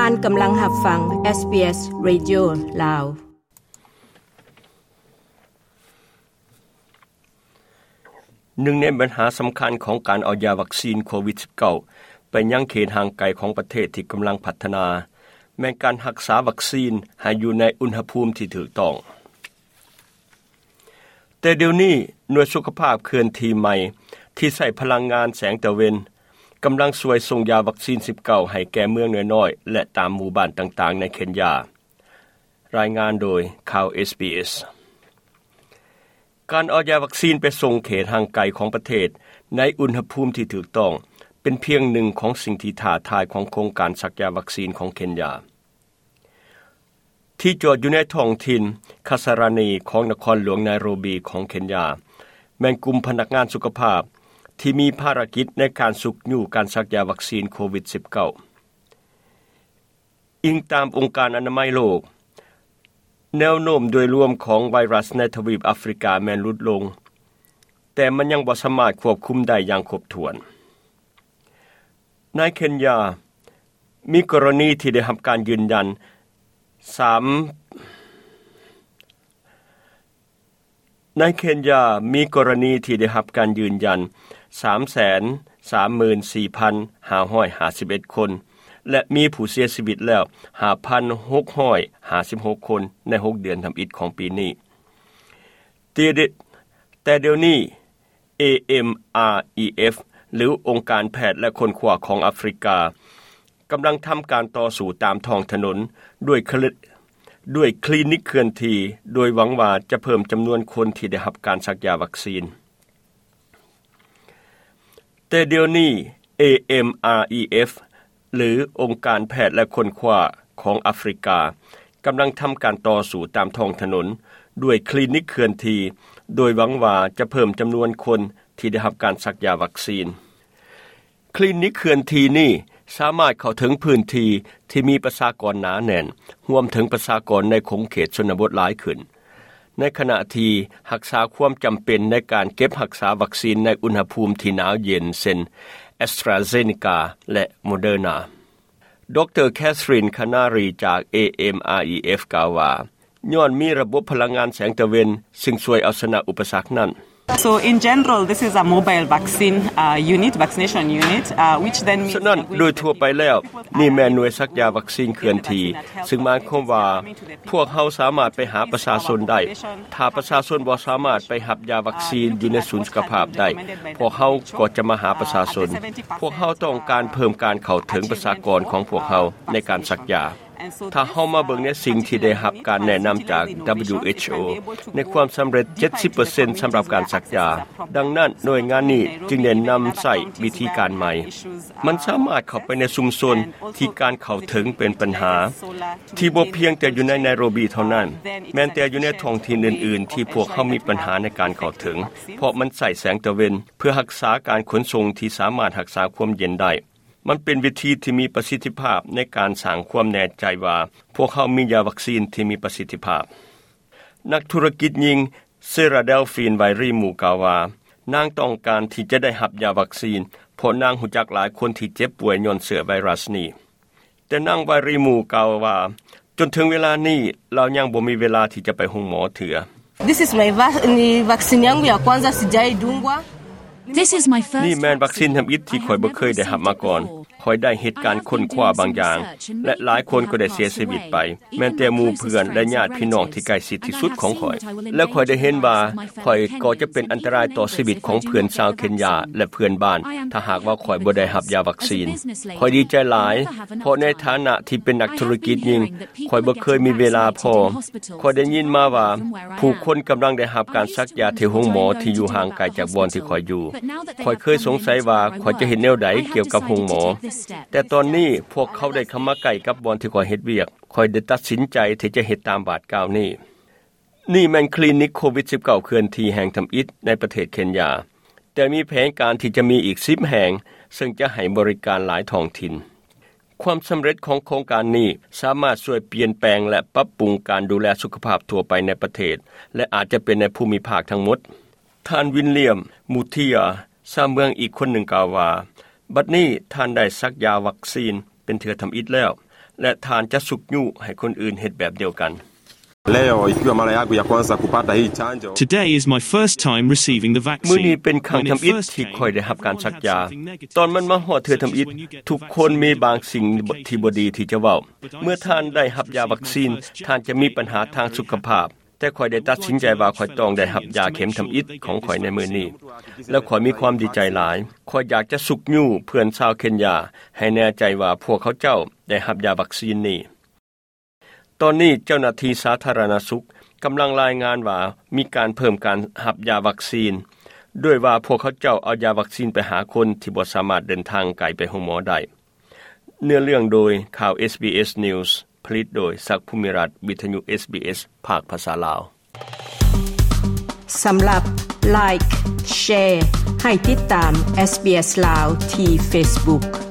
ທ່ານກຳລັງຮັບຟັງ SBS Radio ລາວ. ໜຶ່ງໃນບັນຫາສຳຄັນຂອງການເອົາຢາວັກຊີນໂຄວິດ-19 ໄປຍັງເຂດຫ່າງໄກຂອງປະເທດທີ່ກຳລັງພັດທະນາ ແມ່ນການຮັກສາວັກຊີນໃຫ້ຢູ່ໃນອຸນຫະພູມທີ່ຖືກຕ້ອງ. ແຕ່ດຽວນີ້ ໜ່ວຍສຸຂະພາບເຄື່ອນທີ່ໃໝ່ທີ່ໃຊ້ພະລັງງານແສງຕາເວັນ ກຳລັງຊ່ວຍສົ່ງຢາວັກຊີນ-19 ໃຫ້ແກ່ເມືອງນ້ອຍໆ ແລະ ຕາມໝູ່ບ້ານຕ່າງໆໃນເຄນຢາ. ລາຍງານໂດຍຂ່າວ SBS. ການເອົາຢາວັກຊີນໄປສົ່ງເຂດຫ່າງໄກຂອງປະເທດໃນອຸນຫະພູມທີ່ຖືກຕ້ອງ ເປັນພຽງໜຶ່ງຂອງສິ່ງທີ່ທ້າທາຍຂອງໂຄງການສັກຢາວັກຊີນຂອງເຄນຢາ. ທີ່ຈອດຢູ່ໃນທ້ອງຖິ່ນຄາສາຣານີຂອງນະຄອນຫຼວງໄນໂຣບີຂອງເຄນຢາ ແມ່ນກຸ່ມພະນັກງານສຸຂະພາບທີ່ມີພາລະກິດໃນການຊຸກຍູ້ການສັກຢາວັກຊີນໂຄວິດ-19. ອີງຕາມອົງການອະນາໄມໂລກ, ແນວໂນ້ມໂດຍລວມຂອງໄວຣັສໃນທະວີບອາຟຣິກາແມ່ນຫຼຸດລົງ, ແຕ່ມັນຍັງບໍ່ສາມາດຄວບຄຸມໄດ້ຢ່າງຄົບຖ້ວນ. ໃນເຄນຢາ ມີກໍລະນີທີ່ໄດ້ຮັບການຢືນຢັນສາມ ໃນເຄນຢາ ມີກໍລະນີທີ່ໄດ້ຮັບການຢືນຢັນສາມແສນສາມໝື່ນສີ່ພັນຫ້າຮ້ອຍຫ້າສິບເອັດຄົນ ແລະ ມີຜູ້ເສຍຊີວິດແລ້ວຫ້າພັນຫົກຮ້ອຍຫ້າສິບຫົກຄົນໃນຫົກເດືອນທຳອິດຂອງປີນີ້. ແຕ່ ແຕ່ດຽວນີ້ AMREF ຫຼື ອົງການແພດ ແລະ ຄົ້ນຄວ້າຂອງອາຟຣິກາ ກຳລັງທຳການຕໍ່ສູ້ຕາມທ້ອງຖະໜົນດ້ວຍຄະ ດ້ວຍຄລີນິກເຄື່ອນທີ່ ໂດຍຫວັງວ່າຈະເພີ່ມຈຳນວນຄົນທີ່ໄດ້ຮັບການສັກຢາວັກຊີນ. ແຕ່ດຽວນີ້ AMREF ຫຼື ອົງການແພດ ແລະ ຄົ້ນຄວ້າຂອງອາຟຣິກາ ກຳລັງທຳການຕໍ່ສູ້ຕາມທ້ອງຖະໜົນດ້ວຍຄລີນິກເຄື່ອນທີ່ ໂດຍຫວັງວ່າຈະເພີ່ມຈຳນວນຄົນທີ່ໄດ້ຮັບການສັກຢາວັກຊີນ. ຄລີນິກເຄື່ອນທີ່ນີ້ສາມາດເຂົ້າເຖິງພື້ນທີ່ທີ່ມີປະຊາກອນໜາແໜ້ນ, ຮວມເຖິງປະຊາກອນໃນຂົງເຂດຊົນນະບົດຫຼາຍຂຶ້ນ, ໃນຂະນະທີ່ຮັກສາຄວາມຈຳເປັນໃນການເກັບຮັກສາວັກຊີນໃນອຸນຫະພູມທີ່ໜາວເຢັນ ເຊັ່ນ AstraZeneca ແລະ Moderna. ດຣ. Catherine Canary ຈາກ AMREF ກ່າວວ່າ, ຍ້ອນມີລະບົບພະລັງງານແສງຕາເວັນ ຊຶ່ງຊ່ວຍເອົາຊະນະອຸປະສັກນັ້ນ. So in general, this is a mobile vaccine, uh, unit, vaccination unit, uh, which then means ສະນັ້ນ ໂດຍທົ່ວໄປແລ້ວ ນີ້ແມ່ນໜ່ວຍສັກຢາວັກຊີນເຄື່ອນທີ່ ຊຶ່ງໝາຍຄວາມວ່າ ພວກເຮົາສາມາດໄປຫາປະຊາຊົນໄດ້. ຖ້າປະຊາຊົນບໍ່ສາມາດໄປຮັບຢາວັກຊີນຢູ່ໃນສູນສຸຂະພາບໄດ້, ພວກເຮົາກໍຈະມາຫາປະຊາຊົນ. ພວກເຮົາຕ້ອງການເພີ່ມການເຂົ້າເຖິງປະຊາກອນຂອງພວກເຮົາໃນການສັກຢາ. ຖ້າເຮົາມາເບິ່ງໃນສິ່ງທີ່ໄດ້ຮັບການແນະນຳຈາກ WHO ໃນຄວາມສຳເລັດ ເຈັດສິບເປີເຊັນ ສຳລັບການສັກຢາ. ດັ່ງນັ້ນ ໜ່ວຍງານນີ້ຈຶ່ງໄດ້ນຳໃຊ້ວິທີການໃໝ່. ມັນສາມາດເຂົ້າໄປໃນຊຸມຊົນທີ່ການເຂົ້າເຖິງເປັນບັນຫາ, ທີ່ບໍ່ພຽງແຕ່ຢູ່ໃນໄນໂຣບີເທົ່ານັ້ນ, ແມ່ນແຕ່ຢູ່ໃນທ້ອງຖິ່ນອື່ນໆ ທີ່ພວກເຮົາມີບັນຫາໃນການເຂົ້າເຖິງ, ເພາະມັນໃຊ້ແສງຕາເວັນເພື່ອຮັກສາການຂົນສົ່ງທີ່ສາມາດຮັກສາຄວາມເຢັນໄດ້. ມັນເປັນວິທີທີ່ມີປະສິດທິພາບໃນການສ້າງຄວາມແນ່ໃຈວ່າພວກເຮົາມີຢາວັກຊີນທີ່ມີປະສິດທິພາບ. ນັກທຸລະກິດຍິງ Sarah Delphine Wiry Moore ກ່າວວ່າ, ນາງຕ້ອງການທີ່ຈະໄດ້ຮັບຢາວັກຊີນ ເພາະນາງຮູ້ຈັກຫຼາຍຄົນທີ່ເຈັບປ່ວຍຍ້ອນເຊື້ອໄວຣັສນີ້. ແຕ່ນາງ Wiry Moore ກ່າວວ່າ, ຈົນເຖິງເວລານີ້ ລາວຍັງບໍ່ມີເວລາທີ່ຈະໄປໂຮງໝໍເທື່ອ. This is my va-, ni vaccine yangu ya kwanza, sijaidungwa. This is my first ນີ້ແມ່ນວັກຊີນທຳອິດທີ່ຂ້ອຍບໍ່ເຄີຍໄດ້ຮັບມາກ່ອນ. ຂ້ອຍໄດ້ເຮັດການຄົ້ນຄວ້າບາງຢ່າງ ແລະ ຫຼາຍຄົນກໍໄດ້ເສຍຊີວິດໄປ, ແມ່ນແຕ່ໝູ່ເພື່ອນ ແລະ ຍາດພີ່ນ້ອງທີ່ໃກ້ຊິດທີ່ສຸດຂອງຂ້ອຍ. ແລະ ຂ້ອຍໄດ້ເຫັນວ່າຂ້ອຍກໍຈະເປັນອັນຕະລາຍຕໍ່ຊີວິດຂອງເພື່ອນຊາວເຄນຢາ ແລະ ເພື່ອນບ້ານ ຖ້າຫາກວ່າຂ້ອຍບໍ່ໄດ້ຮັບຢາວັກຊີນ. ຂ້ອຍດີໃຈຫຼາຍ, ເພາະໃນຖານະທີ່ເປັນນັກທຸລະກິດຍິງ, ຂ້ອຍບໍ່ເຄີຍມີເວລາພໍ. ຂ້ອຍໄດ້ຍິນມາວ່າຜູ້ຄົນກຳລັງໄດ້ຮັບການສັກຢາທີ່ໂຮງໝໍທີ່ຢູ່ຫ່າງໄກຈາກບ່ອນທີ່ຂ້ອຍຢູ່. ຂ້ອຍເຄີຍສົງໄສວ່າຂ້ອຍຈະເຮັດແນວໃດກ່ຽວກັບໂຮງໝໍ, ແຕ່ຕອນນີ້ພວກເຂົາໄດ້ເຂົ້າມາໃກ້ກັບບ່ອນທີ່ຂ້ອຍເຮັດວຽກ. ຂ້ອຍໄດ້ຕັດສິນໃຈທີ່ຈະເຮັດຕາມບາດກ້າວນີ້. ນີ້ແມ່ນຄລີນິກໂຄວິດ-19 ເຄື່ອນທີ່ແຫ່ງທຳອິດໃນປະເທດເຄນຢາ, ແຕ່ມີແຜນການທີ່ຈະມີອີກສິບແຫ່ງ, ເຊິ່ງຈະໃຫ້ບໍລິການຫຼາຍທ້ອງຖິ່ນ. ຄວາມສຳເລັດຂອງໂຄງການນີ້ສາມາດຊ່ວຍປ່ຽນແປງ ແລະ ປັບປຸງການດູແລສຸຂະພາບທົ່ວໄປໃນປະເທດ ແລະ ອາດຈະເປັນໃນພູມິພາກທັງໝົດ. ທ່ານ ວິນລຽມ ມູເທຍ ຊາວເມືອງອີກຄົນໜຶ່ງກ່າວວ່າ, ບັດນີ້ທ່ານໄດ້ສັກຢາວັກຊີນເປັນເທື່ອທຳອິດແລ້ວ. ແລະ ທ່ານຈະຊຸກຍູ້ໃຫ້ຄົນອື່ນເຮັດແບບດຽວກັນ. Leo ikiwa mara yangu ya kwanza kupata hii chanjo. Today is my first time receiving the vaccine. ມື້ນີ້ເປັນຄັ້ງທຳອິດທີ່ຂ້ອຍໄດ້ຮັບການສັກຢາ. ຕອນມັນມາຮອດເທື່ອທຳອິດ, ທຸກຄົນມີບາງສິ່ງທີ່ບໍ່ດີທີ່ຈະເວົ້າ. ເມື່ອທ່ານໄດ້ຮັບຢາວັກຊີນ, ທ່ານຈະມີບັນຫາທາງສຸຂະພາບ. ແຕ່ຂ້ອຍໄດ້ຕັດສິນໃຈວ່າຂ້ອຍຕ້ອງໄດ້ຮັບຢາເຂັມທຳອິດຂອງຂ້ອຍໃນມື້ນີ້ ແລະ ຂ້ອຍມີຄວາມດີໃຈຫຼາຍ. ຂ້ອຍຢາກຈະຊຸກຍູ້ເພື່ອນຊາວເຄນຢາໃຫ້ແນ່ໃຈວ່າພວກເຂົາເຈົ້າໄດ້ຮັບຢາວັກຊີນນີ້. ຕອນນີ້ເຈົ້າໜ້າທີ່ສາທາລະນະສຸກກຳລັງລາຍງານວ່າມີການເພີ່ມການຮັບຢາວັກຊີນ ດ້ວຍວ່າພວກເຂົາເຈົ້າເອົາຢາວັກຊີນໄປຫາຄົນທີ່ບໍ່ສາມາດເດີນທາງໄກໄປໂຮງໝໍໄດ້. ເນື້ອເລື່ອງໂດຍ ຂ່າວ ເອສບີເອສ News ຜະລິດໂດຍ ສັກ ພູມິລັດ ວິທະຍຸ ເອສບີເອສ ພາກພາສາລາວ. ສຳລັບ Like Share ໃຫ້ຕິດຕາມ SBS ລາວ ທີ່ Facebook.